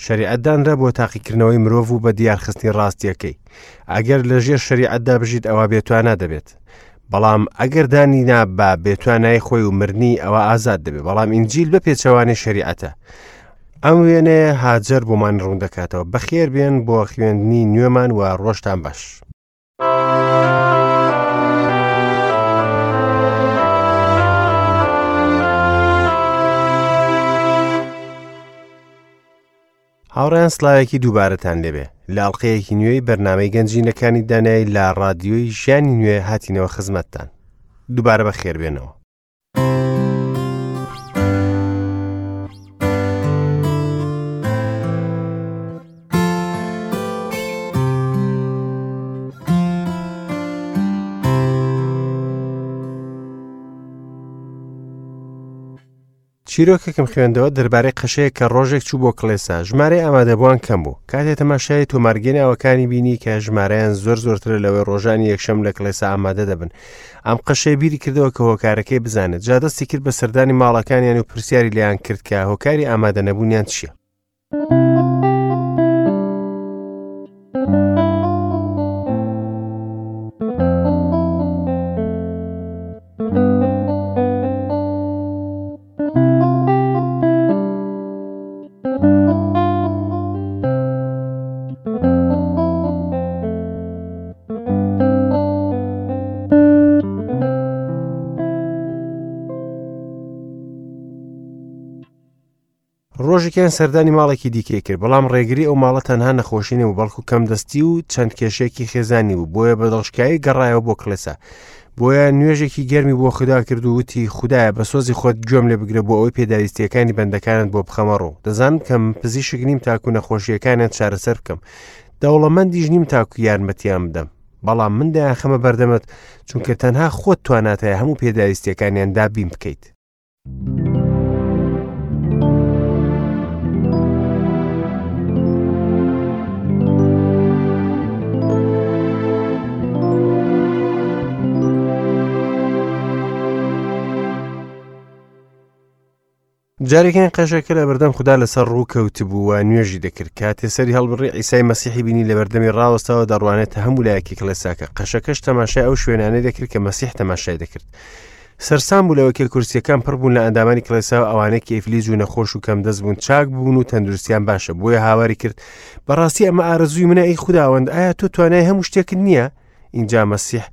شەریعەت دانرا بۆ تاقیکردنەوەی مرۆڤ و بە دیارخستنی ڕاستیەکەی. ئەگەر لە ژێر شەریعەتدا بژیت ئەوا بێتوانا دەبێت. بەڵام ئەگەر دانی نا بە بێتوانای خۆی و مردنی ئەوە ئازاد دەبێت. بەڵام ئینجیل بە پێچەوانەی شەریعەتە. ئەم وێنەیە هاجەر بۆمان ڕوون دەکاتەوە. بەخێر بێن بۆ خوێندنی نوێمان و ڕۆژتان باش. هاوڕێیان سلاوێکی دووبارەتان لێبێ لە ئەڵلقەیەکی نوێی بەرنمەی گەنجینەکانی دانایی لە ڕادیۆی ژیانی نوێ هاتینەوە خزمەتتان دووبارە بە خێربێنەوە. چیرۆکێکم خوێندەوە دەربارەی قەشەیەک کە ڕۆژێک چوو بۆ کڵێسا، ژمارەی ئامادەبووان کەم بوو. کاتێ تەماشای تۆمارگەی ناوەکانی بینی کە ژمارەیان زۆر زۆرترە لەوەی ڕۆژانی یەکشەم لە کڵێسا ئامادە دەبن. ئەم قەشەیە بیری کردەوە کە هۆکارەکەی بزانێت، جا دەستی کرد بە سەردانی ماڵەکانیان و پرسیاری لێیان کرد کە هۆکاری ئامادەنەبوونیان چییە. ڕۆژێکیان سەردانی ماڵێکی دیکەی کرد بەڵام ڕێگری ئەو ماڵە تەنها نەخۆشی نەبوو بەڵکو کەم دەستی و چەند کێشەیەکی خێزانی بوو بۆیە بە دڵشکایی گەڕایەوە بۆ کڵێسا بۆیە نوێژێکی گەرمی بۆ خودا کرد و وتی خودایە بە سۆزی خۆت گوێم لێ بگرە بۆ ئەوەی پێداویستیەکانی بەندەکانت بۆ بخەمە ڕوو دەزانم کە من پزیشک نیم تاکو نەخۆشیەکانیان چارەسەر بکەم دەوڵەمەندیش نیم تاکو یارمەتیان بدەم بەڵام من دەیانخەمە بەردەمت چونکە تەنها خۆت توانات هەیە هەموو پێداویستیەکانیان دابین بکەیت. جارێکیان قەشەکە لە بەردەم خودا لەسەر ڕوو کەوتبوو و نوێژی دەکرد کاتێ سەری هەڵبڕی عیسای مەسیحی بینی لە بەردەمی ڕاوەستاوە دەڕوانێتە هەموو لایەکی کڵێساکە قەشەکەش تەماشای ئەو شوێنانەی دەکرد کە مەسیح تەماشای دەکرد سەرسام بوو لەوەی کە کورسیەکان پڕ بوون لە ئەندامانی کڵێسا و ئەوانەی کە ئیفلیج و نەخۆش و کەمدەست بوون چاک بوون و تەندروستیان باشە بۆیە هاواری کرد بەڕاستی ئەمە ئارەزووی منە ئەی خوداوەند ئایا تۆ توانای هەموو شتێکت نییە ئینجا مەسیح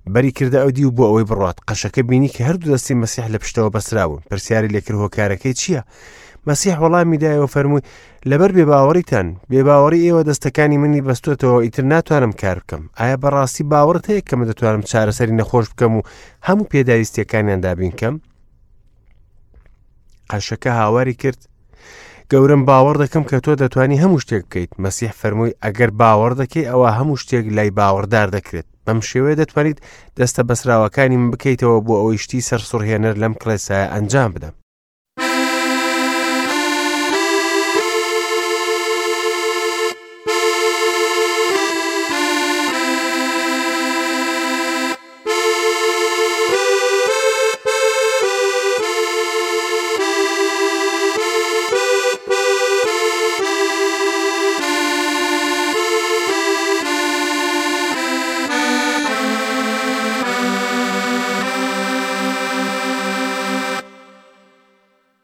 بەری کردە ئەو دیو بۆ ئەوەی بڕات قەشەکە بینی کە هەردوو دەستی مەسیح لە پشتەوە بەسراون پرسیاری لێکرد هۆکارەکەی چییە؟ مەسیح وەڵامی دایەوە فەرمووی لەبەر بێباوەڕیتان بێباوەڕی ئێوە دەستەکانی منی بەستۆتەوە ئیتر ناتوانم کار بکەم ئایا بەڕاستی باوەڕت هەیە کە من دەتوانم چارەسەری نەخۆش بکەم و هەموو پێداویستیەکانیان دابین کەم قەشەکە هاواری کرد گەورم باوەڕ دەکەم کە تۆ دەتوانی هەموو شتێک بکەیت مەسیح فەرمووی ئەگەر باوەڕ دەکەی ئەوە هەموو شتێک لای باوەڕدار دەکرێت بەم شێوەیە دەتوانیت دەستە بەسراوەکانی من بکەیتەوە بۆ ئەوەی شتی سەرسوڕهێنەر لەم کڵێسایە ئەنجام بدەم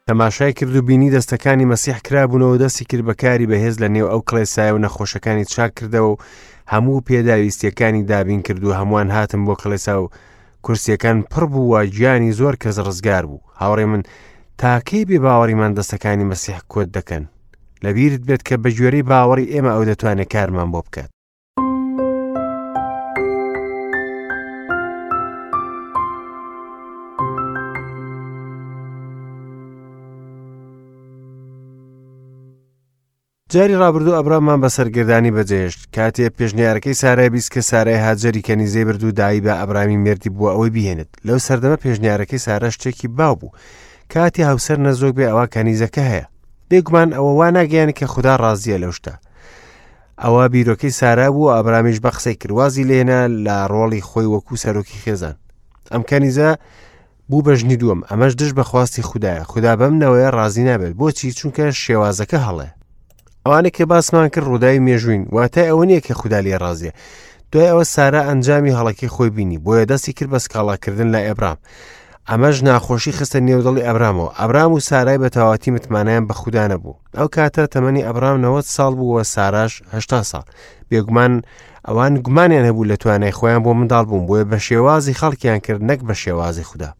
تەماشای کرد و بینی دەستەکانی مەسیح کرابوونەوە دەستی کرد بە کاری بەهێز لە نێو ئەو کڵێسایە و نەخۆشەکانی چاک کردەوە و هەموو پێداویستیەکانی دابین کرد و هەمووان هاتن بۆ کڵێسا و کورسیەکان پڕ بوو و گیانی زۆر کەس ڕزگار بوو هاوڕێ من تاکەی بێ باوەڕیمان دەستەکانی مەسیح کۆت دەکەن لەبیرت بێت کە بە گوێرەی باوەڕی ئێمە ئەو دەتوانێت کارمان بۆ بکات جاری ڕابردوو ئەبرامان بە سەرگەردانی بەجێهێشت کاتێ پێشنیارەکەی سارای بیست کە سارای هاجەری کەنیزەی برد و دایی بە ئەبرامی مێردی بووە ئەوەی بهێنێت لەو سەردەمە پێشنیارەکەی سارا شتێکی باو بوو کاتی هاوسەر نەزۆک بێ ئەوە کەنیزەکە هەیە بێگومان ئەوە وا ناگەیان کە خودا ڕازیە لەو شتە ئەوە بیرۆکەی سارا بوو ئابرامیش بە قسەی کرد وازی لێنا لە ڕۆڵی خۆی وەکو سەرۆکی خێزان ئەم کەنیزە بوو بە ژنی دووەم ئەمەش دژ بە خواستی خودایە خودا بەم نەوەیە ڕازی نابێت بۆچی چونکە شێوازەکە هەڵەیە. ئەوانەی کە باسمان کرد ڕووداوی مێژووین، واتای ئەوە نییە کە خودا لێی ڕازیە. دوای ئەوە سارا ئەنجامی هەڵەکەی خۆی بینی، بۆیە دەستی کرد بە سکاڵاکردن لای ئەبرام. ئەمەش ناخۆشی خستە نێو دڵی ئەبرامەوە. ئەبرام و سارای بە تەواوەتی متمانەیان بە خودا نەبوو. ئەو کاتە تەمەنی ئەبرام 90 ساڵ بوو و ساراش 80 ساڵ. بێگومان ئەوان گومانیان هەبوو لە توانای خۆیان بۆ منداڵ بوون، بۆیە بە شێوازی خەڵکیان کرد نەک بە شێوازی خودا.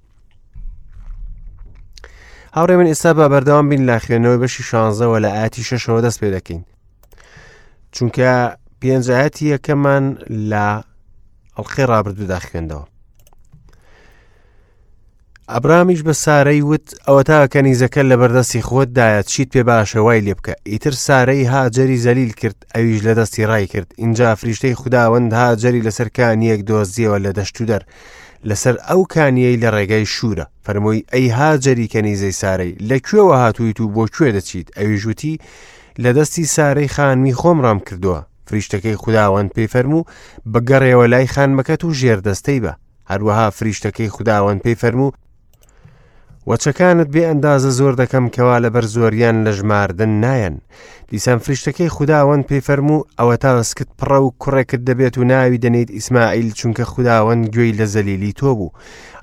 هاوڕێ من ئێستا بە بەردەوام بین لە خوێندنەوەی بەشی شانزەوە لە ئاەتی شەشەوە دەست پێ دەکەین چونکە پێنج ئاەتی یەکەمان لە ئەڵلقەی ڕابردوودا خوێندەوە ئەبرامیش بە سارەی وت ئەوەتا کەنیزەکە لە بەردەستی خۆتدایە چیت پێ باشە وای لێ بکە ئیتر سارەی هاجەری زەلیل کرد ئەویش لە دەستی ڕای کرد ئینجا فریشتەی خوداوەند هاجەری لەسەر کانیەک دۆزیەوە لە دەشت و دەر لەسەر ئەو کانیەی لە ڕێگای شوورە فەرمووی ئەی هاجەری کەنیزەی سارەی لە کوێوە هاتوویت و بۆ کوێ دەچیت ئەویش وتی لە دەستی سارەی خانمی خۆم ڕام کردووە فریشتەکەی خوداوەند پێی فەرموو بگەڕێوە لای خانمەکەت و ژێردەستەی بە هەروەها فریشتەکەی خوداوەند پێی فەرموو وەچەکانت بێ ئەندازە زۆر دەکەم کەوا لەبەر زۆریان لە ژماردن نایەن دیسان فریشتەکەی خوداوەند پێی فەرموو ئەوەتا سکت پڕە و کوڕێکت دەبێت و ناوی دەنێیت ئیسماعیل چونکە خوداوەند گوێی لە زەلیلی تۆ بوو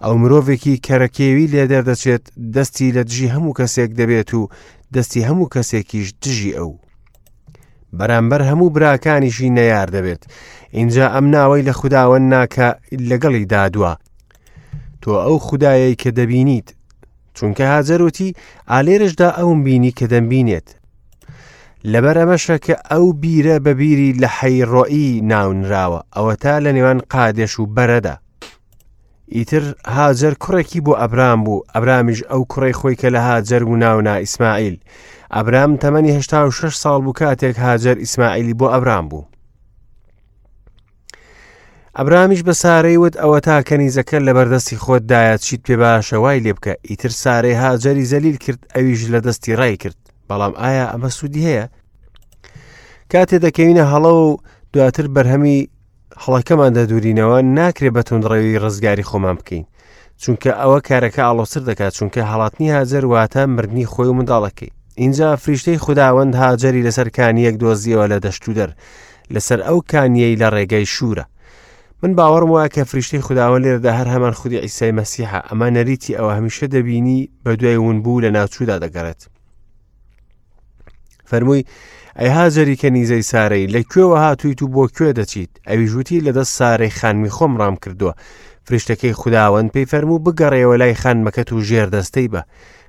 ئەو مرۆڤێکی کەرەکێوی لێ دەردەچێت دەستی لە دژی هەموو کەسێک دەبێت و دەستی هەموو کەسێکیش دژی ئەو بەرامبەر هەموو براکانیشی نەیار دەبێت اینجا ئەم ناوەی لە خوداوەند ناکە لەگەڵی دادوە تۆ ئەو خودایەی کە دەبینیت چونکە هاجەر وتی ئالێرشدا ئەوم بینی کە دەمبینێت لەبەر ئەمەشە کە ئەو بیرە بە بیری لە حەی ڕۆئی ناونراوە ئەوەتا لە نێوان قادێش و بەرەدا ئیتر هاجەر کوڕێکی بۆ ئەبرام بوو ئەبرامیش ئەو کوڕی خۆی کە لە هاجەر بوو ناونا ئیسماعیل ئەبرام تەمەنی 86 ساڵ بوو کاتێک هاجەر ئیسماعیلی بۆ ئەبرام بوو ئەبرامیش بە سارەی وت ئەوەتا کەنیزەکە لە بەردەستی خۆتدایە چیت پێ باشە وای لێ بکە ئیتر سارەی هاجەری زەلیل کرد ئەویش لە دەستی ڕای کرد بەڵام ئایا ئەمە سوودی هەیە کاتێ دەکەوینە هەڵە و دواتر بەرهەمی هەڵەکەمان دەدورینەوە ناکرێ بە توندڕەوی ڕزگاری خۆمان بکەین چونکە ئەوە کارەکە ئاڵۆزتر دەکات چونکە هەڵاتنی هاجەر واتە مردنی خۆی و منداڵەکەی اینجا فریشتەی خوداوەند هاجەری لەسەر کانیەک دۆزیەوە لە دەشتودەر لەسەر ئەو کانیەی لە ڕێگەی شوورە من باوەڕم وایە کە فریشتەی خوداوەند لێرەدا هەر هەمان خودی عیسای مەسیحە ئەمە نەریتی ئەوە هەمیشە دەبینی بە دوای ونبوو لە ناوچوودا دەگەڕێت فەرمووی ئەی هاجەری کەنیزەی سارەی لە کوێوە هاتوویت و بۆ کوێ دەچیت ئەویش وتی لە دەست سارەی خانمی خۆم ڕام کردووە فریشتەکەی خوداوەند پێی فەرموو بگەڕێەوە لای خانمەکەت و ژێر دەستەی بە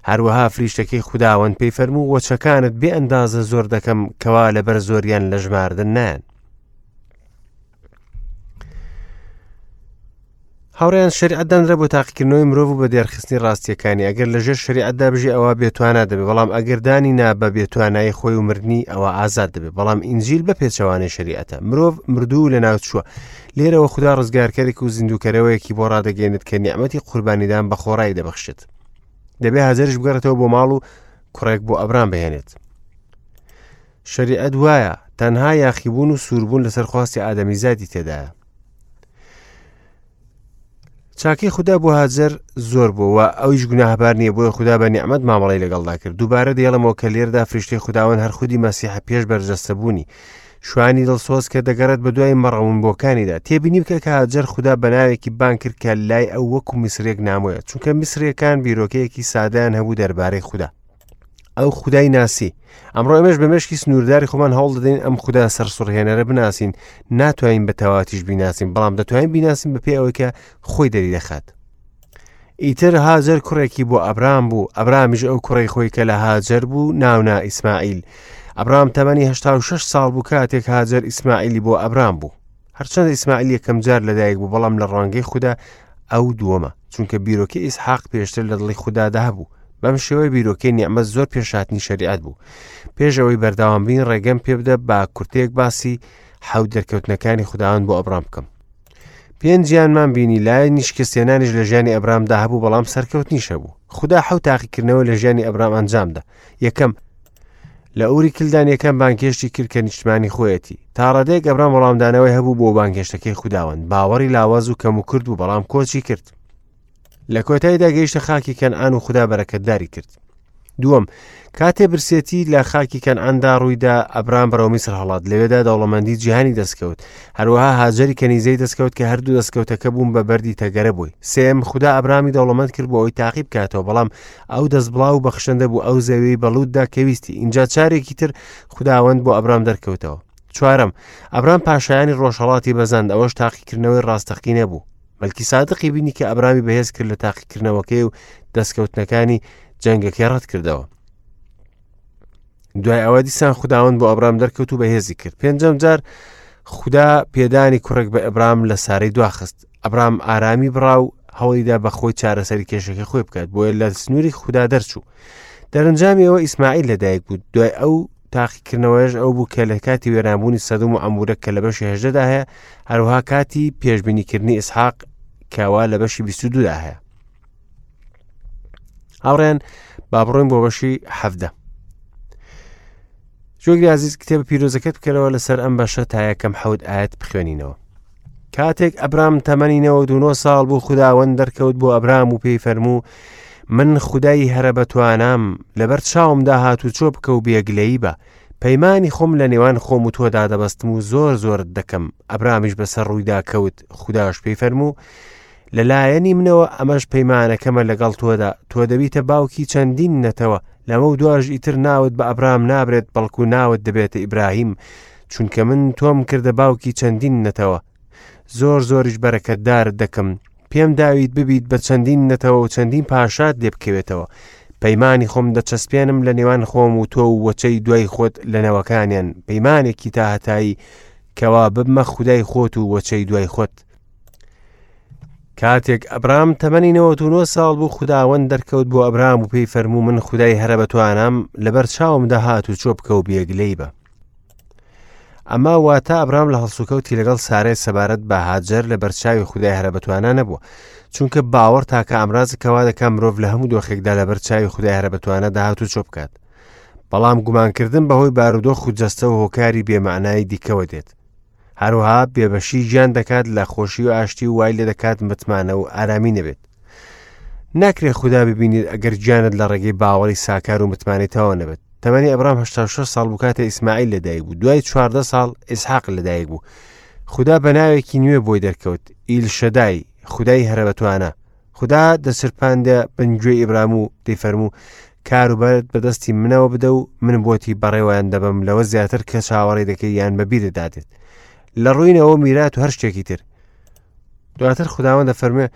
هەروەها فریشتەکەی خوداوەند پێی فەرموو وەچەکانت بێ ئەندازە زۆر دەکەم کەوا لەبەر زۆریان لە ژماردن نایەن هاوڕێیان شەریعەت دانرا بۆ تاقیکردنەوەی مرۆڤ و بە دێرخستنی ڕاستیەکانی ئەگەر لەژێر شەریعەتدا بژی ئەوە بێتوانا دەبێت بەڵام ئەگەر دانی نا بە بێتوانایی خۆی و مردنی ئەوە ئازاد دەبێت بەڵام ئینجیل بە پێچەوانەی شەریعەتە مرۆڤ مردوو لە ناوچووە لێرەوە خودا ڕزگارکەرێک و زیندووکەرەوەیەکی بۆ ڕادەگەێنێت کە نیعمەتی قوربانیدان بە خۆڕایی دەبەخشێت دەبێ هاجەریش بگەڕێتەوە بۆ ماڵ و کوڕێک بۆ ئەبرام بهێنێت شەریعەت وایە تەنها یاخیبوون و سووربوون لەسەر خواستی ئادەمیزادی تێدایە چاکەی خودا بۆ هاجەر زۆر بوو و ئەویش گوناهبار نییە بۆیە خودا بە نیعمەت مامەڵەی لەگەڵدا کرد دووبارە دەیڵێمەوە کە لێردا فریشتەی خوداوەند هەر خودی مەسیحە پێش بەرجەستەبوونی شوانی دڵسۆز کە دەگەڕێت بە دوای مەڕەونبووەکانیدا تێبینی بکە کە هاجەر خودا بە ناوێکی بانگ کرد کە لای ئەو وەکو میسرێک نامۆیە چونکە میسرەکان بیرۆکەیەکی سادەیان هەبوو دەربارەی خودا ئەو خودای ناسی ئەمڕۆ ئێمەش بە مێشکی سنوورداری خۆمان هەوڵ دەدەین ئەم خودا سەرسوڕهێنەرە بناسین ناتوانین بە تەواتیش بیناسین بەڵام دەتوانین بیناسین بە پێ ئەوەی کە خۆی دەری دەخات ئیتر هاجەر کوڕێکی بۆ ئەبرام بوو ئەبرامیش ئەو کوڕی خۆی کە لە هاجەر بوو ناونا ئیسماعیل ئەبرام تەمەنی 86 ساڵ بوو کاتێک هاجەر ئیسماعیلی بۆ ئەبرام بوو هەرچەندە ئیسماعیل یەکەم جار لەدایک بوو بەڵام لە ڕوانگەی خودا ئەو دووەمە چونکە بیرۆکەی ئیسحاق پێشتر لە دڵی خودادا هەبوو بەم شێوەیە بیرۆکەی نیعمەت زۆر پێش هاتنی شەریعەت بوو پێش ئەوەی بەردەوام بین ڕێگەم پێ بدە با کورتەیەک باسی حەوت دەرکەوتنەکانی خوداوەند بۆ ئەبرام بکەم پێنجیانمان بینی لایەنی شکستێنانیش لە ژیانی ئەبرامدا هەبوو بەڵام سەرکەوتنیش هەبوو خودا حەوت تاقیکردنەوە لە ژیانی ئەبرام ئەنجامدا یەکەم لە ئوری کلدان یەکەم بانگهێشتی کرد کە نیشتمانی خۆیەتی تا ڕادەیەک ئەبرام وەڵامدانەوەی هەبوو بۆ بانگهێشتەکەی خوداوەند باوەڕی لاواز و کەم و کورت بوو بەڵام کۆچی کرد لە کۆتاییدا گەیشتە خاکی کەنعان و خودا بەرەکەتداری کرد. دووەم، کاتێ برسێتی لە خاکی کەنعاندا ڕوویدا، ئەبرام بەرەو میسر هەڵات، لەوێدا دەوڵەمەندی جیهانی دەستکەوت. هەروەها هاجەری کەنیزەی دەستکەوت کە هەردوو دەستکەوتەکە بوون بە بەردی تەگەرە بۆی. سێیەم، خودا ئەبرامی دەوڵەمەند کرد بۆ ئەوەی تاقی بکاتەوە، بەڵام ئەو دەستبڵاو و بەخشندە بوو، ئەو زەویەی بە لوتدا کە ویستی. ئینجا چارێکی تر خوداوەند بۆ ئەبرام دەرکەوتەوە. چوارەم، ئەبرام پاشایانی ڕۆژهەڵاتی بەزاند، ئەوەش تاقیکردنەوەی ڕاستەقینە بوو. مەلکی سادقی بینی کە ئەبرامی بەهێز کرد لە تاقیکردنەوەکەی و دەستکەوتنەکانی جەنگەکەی ڕەت کردەوە. دوای ئەوە دیسان خوداوەند بۆ ئەبرام دەرکەوت و بەهێزی کرد. پێنجەم جار خودا پێدانی کوڕێک بە ئەبرام لە سارەی دواخست. ئەبرام ئارامی بڕا و هەوڵیدا بە خۆی چارەسەری کێشەکەی خۆی بکات، بۆیە لە سنووری خودا دەرچوو. دەرەنجامی ئەوە ئیسماعیل لەدایک بوو. دوای ئەو تاقیکردنەوەیش ئەو بوو کە لە کاتی وێرانبوونی سەدوم و عەمورە کە لە بەشی هەژدەدا هەیە، هەروەها کاتی پێشبینیکردنی ئیسحاق کەوا لە بەشی 22دا هەیە. هاوڕێن با بڕۆین بۆ بەشی حەفدە. جۆگری عزیز کتێبە پیرۆزەکەت بکەرەوە لەسەر ئەم بەشە تا یەکەم حەوت ئاەت بخوێنینەوە. کاتێک ئەبرام تەمەنی 99 ساڵ بوو خوداوەند دەرکەوت بۆ ئەبرام و پێی فەرموو من خودای هەرە بەتوانام لەبەر چاومدا هاتوچۆ بکە و بێگلەیی بە پەیمانی خۆم لە نێوان خۆم و تۆدا دەبەستم و زۆر زۆرت دەکەم ئەبرامیش بەسەر ڕوویدا کەوت خوداش پێی فەرموو لەلایەنی منەوە ئەمەش پەیمانەکەمە لەگەڵ تۆدا تۆ دەبیتە باوکی چەندین نەتەوە لەمە و دواش ئیتر ناوت بە ئەبرام نابرێت بەڵکو ناوت دەبێتە ئیبراهیم چونکە من تۆم کردە باوکی چەندین نەتەوە زۆر زۆریش بەرەکەتدارت دەکەم پێم داویت ببیت بە چەندین نەتەوە و چەندین پاشات لێ بکەوێتەوە پەیمانی خۆم دەچەسپێنم لە نێوان خۆم و تۆ و وەچەی دوای خۆت لە نەوەکانیان پەیمانێکی تا هەتایی کەوا ببمە خودای خۆت و وەچەی دوای خۆت کاتێک ئەبرام تەمەنی 99 ساڵ بوو خوداوەند دەرکەوت بۆ ئەبرام و پێی فەرموو من خودای هەرە بەتوانام لەبەر چاوم دەهات و چۆ بکە و بێگلەی بە ئەمە واتە ئەبرام لە هەڵسوکەوتی لەگەڵ سارای سەبارەت بە هاجەر لە بەرچاوی خودای هەرە بەتوانا نەبووە چونکە باوەڕ تاکە ئامرازە کەوا دەکا مرۆڤ لە هەموو دۆخێکدا لە بەرچاوی خودای هەرە بەتوانا داهات و چۆ بکات بەڵام گومانکردن بەهۆی بارودۆخ و جەستە و هۆکاری بێمانایی دیکەوە دێت هەروەها بێبەشی گیان دەکات لە خۆشی و ئاشتی و وای لێ دەکات متمانە و ئارامی نەبێت ناکرێ خودا ببینیت ئەگەر گیانت لە ڕێگەی باوەڕی ساکار و متمانەی تەواو نەبێت تەمەنی ئەبرام 86 ساڵ بوو کاتێ ئیسماعیل لەدایک بوو دوای 14 ساڵ ئیسحاق لەدایک بوو خودا بە ناوێکی نوێ بۆی دەرکەوت ئیل شەدای خودای هەرە بەتوانە خودا دەچرپاندە بن گوێی ئیبرام و دەیفەرموو کاروبارت بەدەستی منەوە بدە و من بۆتی بەڕێوەیان دەبەم لەوە زیاتر کە چاوەڕێ دەکەی یان بەبیرت دادێت لە ڕووینەوە میرات و هەر شتێکی تر دواتر خوداوەند دەفەرموێ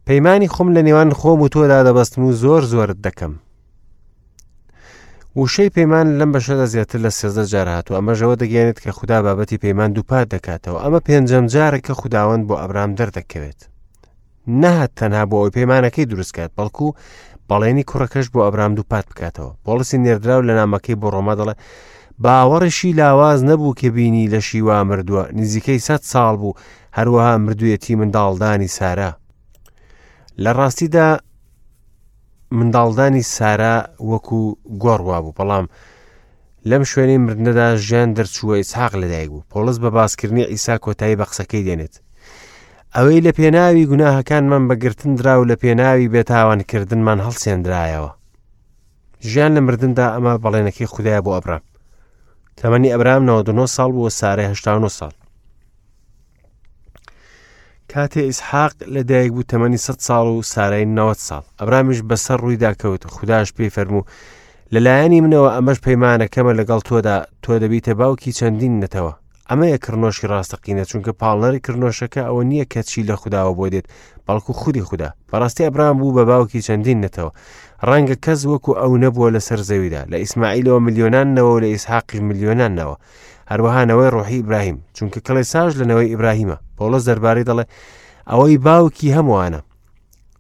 پەیمانی خۆم لە نێوان خۆم و تۆدا دەبەستم و زۆر زۆرت دەکەم وشەی پەیمان لەم بەشەدا زیاتر لە سێزدە جار هاتووە ئەمەژەوە دەگەێنێت کە خودا بابەتی پەیمان دووپات دەکاتەوە ئەمە پێنجەم جارە کە خوداوەند بۆ ئەبرام دەردەکەوێت نەهات تەنها بۆ ئەوەی پەیمانەکەی دروست کات بەڵکو بەڵێنی کوڕەکەش بۆ ئەبرام دووپات بکاتەوە پۆڵسی نێردراو لە نامەکەی بۆ ڕۆما دەڵێ باوەڕیشی لاواز نەبوو کە بینی لەشی وا مردووە نزیکەی سە ساڵ بوو هەروەها مردوویەتی منداڵدانی سارا لە ڕاستیدا منداڵدانی سارا وەکو گۆڕ وابوو بەڵام لەم شوێنەی مردنەدا ژیان دەرچووە ئیسحاق لەدایک بوو پۆڵس بە باسکردنی عیسا کۆتایی بە قسەکەی دێنێت ئەوەی لە پێناوی گوناهەکانمان بەگرتن درا و لە پێناوی بێتاوانکردنمان هەڵسێندرایەوە ژیان لە مردندا ئەمە بەڵێنەکەی خودایە بۆ ئەبرام تەمەنی ئەبرام 99 ساڵ بووە سارای 89 ساڵ کاتێ ئیسحاق لە دایک بوو تەمەنی 100 ساڵ و سارای 90 ساڵ ئەبرامیش بەسەر ڕوویدا کەوت خودداش پێی فەرموو لەلایەنی منەوە ئەمەش پەیمانەکەمە لەگەڵ تۆدا تۆ دەبیتە باوکی چەندین نەتەوە ئەمەیە کڕنۆشی ڕاستەقینە چونکە پاڵنەری کڕنۆشەکە ئەوە نییە کە چی لە خوداوە بۆ دێت بەڵکو خودی خودا بەڕاستی ئەبرام بوو بە باوکی چەندین نەتەوە ڕەنگە کەس وەکو ئەو نەبووە لەسەر زەویدا لە ئیسماعیلەوە ملیۆنان نەوە و لە ئیسحاقیش ملیۆنان نەوە هەروەها نەوەی ڕۆحی ئیبراهیم چونکە کڵێساش لە نەوەی ئیبراهیمە پۆڵس دەربارەی دەڵێ ئەوەی باوکی هەمووانە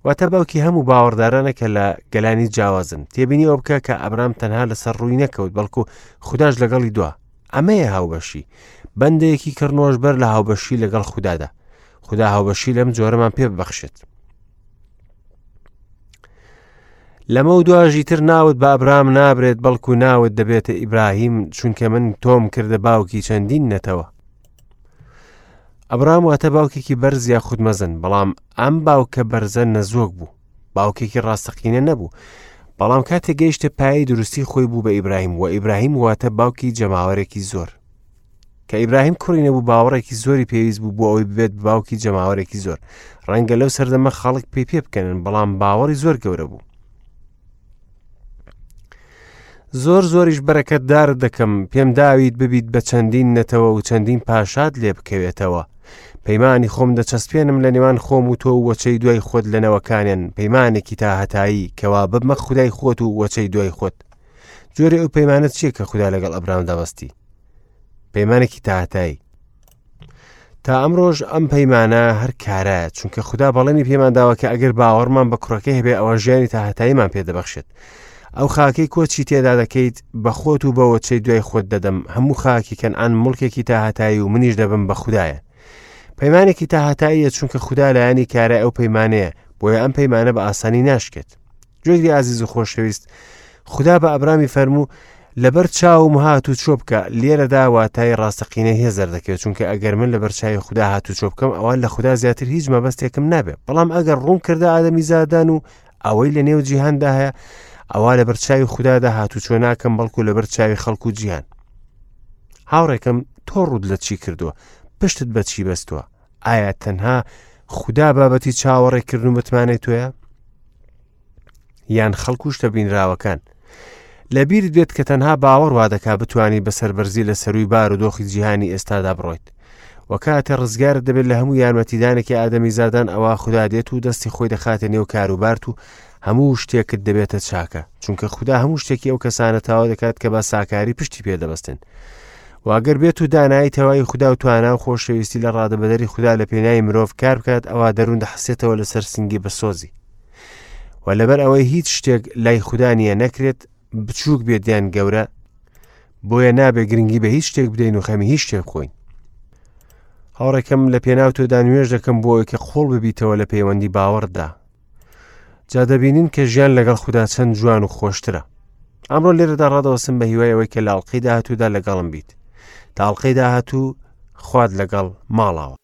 واتە باوکی هەموو باوەڕدارانە کە لە گەلانی جیاوازن تێبینی ئەوە بکە کە ئەبرام تەنها لەسەر ڕووی نەکەوت بەڵکو خودداش لەگەڵی دوا ئەمەیە هاوبەشی بەندێکی کڕنۆش بەر لە هاوبەشی لەگەڵ خوددادا خودا هاوبەشی لەم جۆرەمان پێ ببەخشێت لەمە و دواژی تر ناوت بە ئەبرام نابرێت بەڵکو ناوت دەبێتە ئیبراهیم چونکە من تۆم کردە باوکی چەندین نەتەوە ئەبرام واتە باوکێکی بەرز یاخود مەزن، بەڵام ئەم باوکە بەرزە نەزۆک بوو، باوکێکی ڕاستەقینە نەبوو. بەڵام کاتێک گەیشتە پایەی دروستی خۆی بوو بە ئیبراهیم و ئیبراهیم واتە باوکی جەماوەرێکی زۆر. کە ئیبراهیم کوڕی نەبوو باوەڕێکی زۆری پێویست بوو بۆ ئەوەی ببێت بە باوکی جەماوەرێکی زۆر. ڕەنگە لەو سەردەمە خەڵک پێی پێ بکەنن بەڵام باوەڕی زۆر گەورە بوو. زۆر زۆریش بەرەکەتدارت دەکەم پێم داویت ببیت بە چەندین نەتەوە و چەندین پاشات لێ بکەوێتەوە پەیمانی خۆم دەچەسپێنم لە نێوان خۆم و تۆ و وەچەی دوای خۆت لە نەوەکانیان پەیمانێکی تا هەتایی کەوا ببمە خودای خۆت و وەچەی دوای خۆت جۆری ئەو پەیمانە چییە کە خودا لەگەڵ ئەبرامدا بەستی پەیمانێکی تا هەتایی تا ئەمڕۆژ ئەم پەیمانە هەر کارایە چونکە خودا بەڵێنی پێمان داوە کە ئەگەر باوەڕمان بە کوڕەکەی هەبێ ئەوە ژیانی تا هەتاییمان پێدەبەخشێت ئەو خاکەی کۆچی تێدا دەکەیت بە خۆت و بەوەچەی دوای خۆت دەدەم هەموو خاکی کەنعان مڵکێکی تا هەتایی و منیش دەبم بە خودایە پەیمانێکی تا هەتاییە چونکە خودا لایەنی کارای ئەو پەیمانەیە بۆیە ئەم پەیمانە بە ئاسانی ناشکێت گوێگری ئازیز و خۆشەویست خودا بە ئەبرامی فەرموو لەبەر چاوم هات و چۆ بکە لێرەدا واتای ڕاستەقینە هێز دەردەکەوێت چونکە ئەگەر من لەبەر چاوی خودا هات و چۆ بکەم ئەوە لە خودا زیاتر هیچ مەبەستێکم نابێت بەڵام ئەگەر ڕوون کردە ئادەمی زادان و ئەوەی لە نێو جیهاندا هەیە ئەوە لەبەر چاوی خودادا هات و چۆ ناکەم بەڵکو لەبەر چاوی خەڵک و جیهان هاوڕێکم تۆ ڕوود لە چی کردووە پشتت بە چی بەستووە ئایا تەنها خودا بابەتی چاوەڕێکردن و متمانەی تۆیە یان خەڵک و شتە بینراوەکان لەبیرت بێت کە تەنها باوەڕ وا دەکا بتانی بە سەربەرزی لە سەروی بار و دۆخی جیهانی ئێستادا بڕۆیت و کاتێ ڕزگارت دەبێت لە هەموو یارمەتیدانێکی ئادەمی زادان ئەوە خودا دێت و دەستی خۆی دەخاتە نێو کاروبارت و هەموو شتێکت دەبێتە چاکە چونکە خودا هەموو شتێکی ئەو کەسانە تاوا دەکات کە بە ساکاری پشتی پێدەبەستن واگەر بێت و دانایی تەواوی خودا و توانا و خۆشەویستی لە ڕادەبەدەری خودا لە پێناوی مرۆڤ کار بکات ئەوا دەروون دەحسێتەوە لەسەر سنگی بەسۆزی و لەبەر ئەوەی هیچ شتێک لای خودا نییە نەکرێت بچووک بێت یان گەورە بۆیە نابێ گرنگی بە هیچ شتێک بدەین و خەمی هیچ شتێک بخۆین هاوڕێکەم لە پێناو تۆدا نوێژ دەکەم بۆ ئەوەی کە قوڵ ببیتەوە لە پەیوەندی باوەڕدا جا دەبینین کە ژیان لەگەڵ خودا چەند جوان و خۆشترە ئەمڕۆ لێرەدا ڕادەوەستم بە هیوای ئەوەی کە لە ئەڵقەی داهاتوودا لەگەڵم بیت تا ئەڵقەی داهاتوو خوات لەگەڵ ماڵاوە.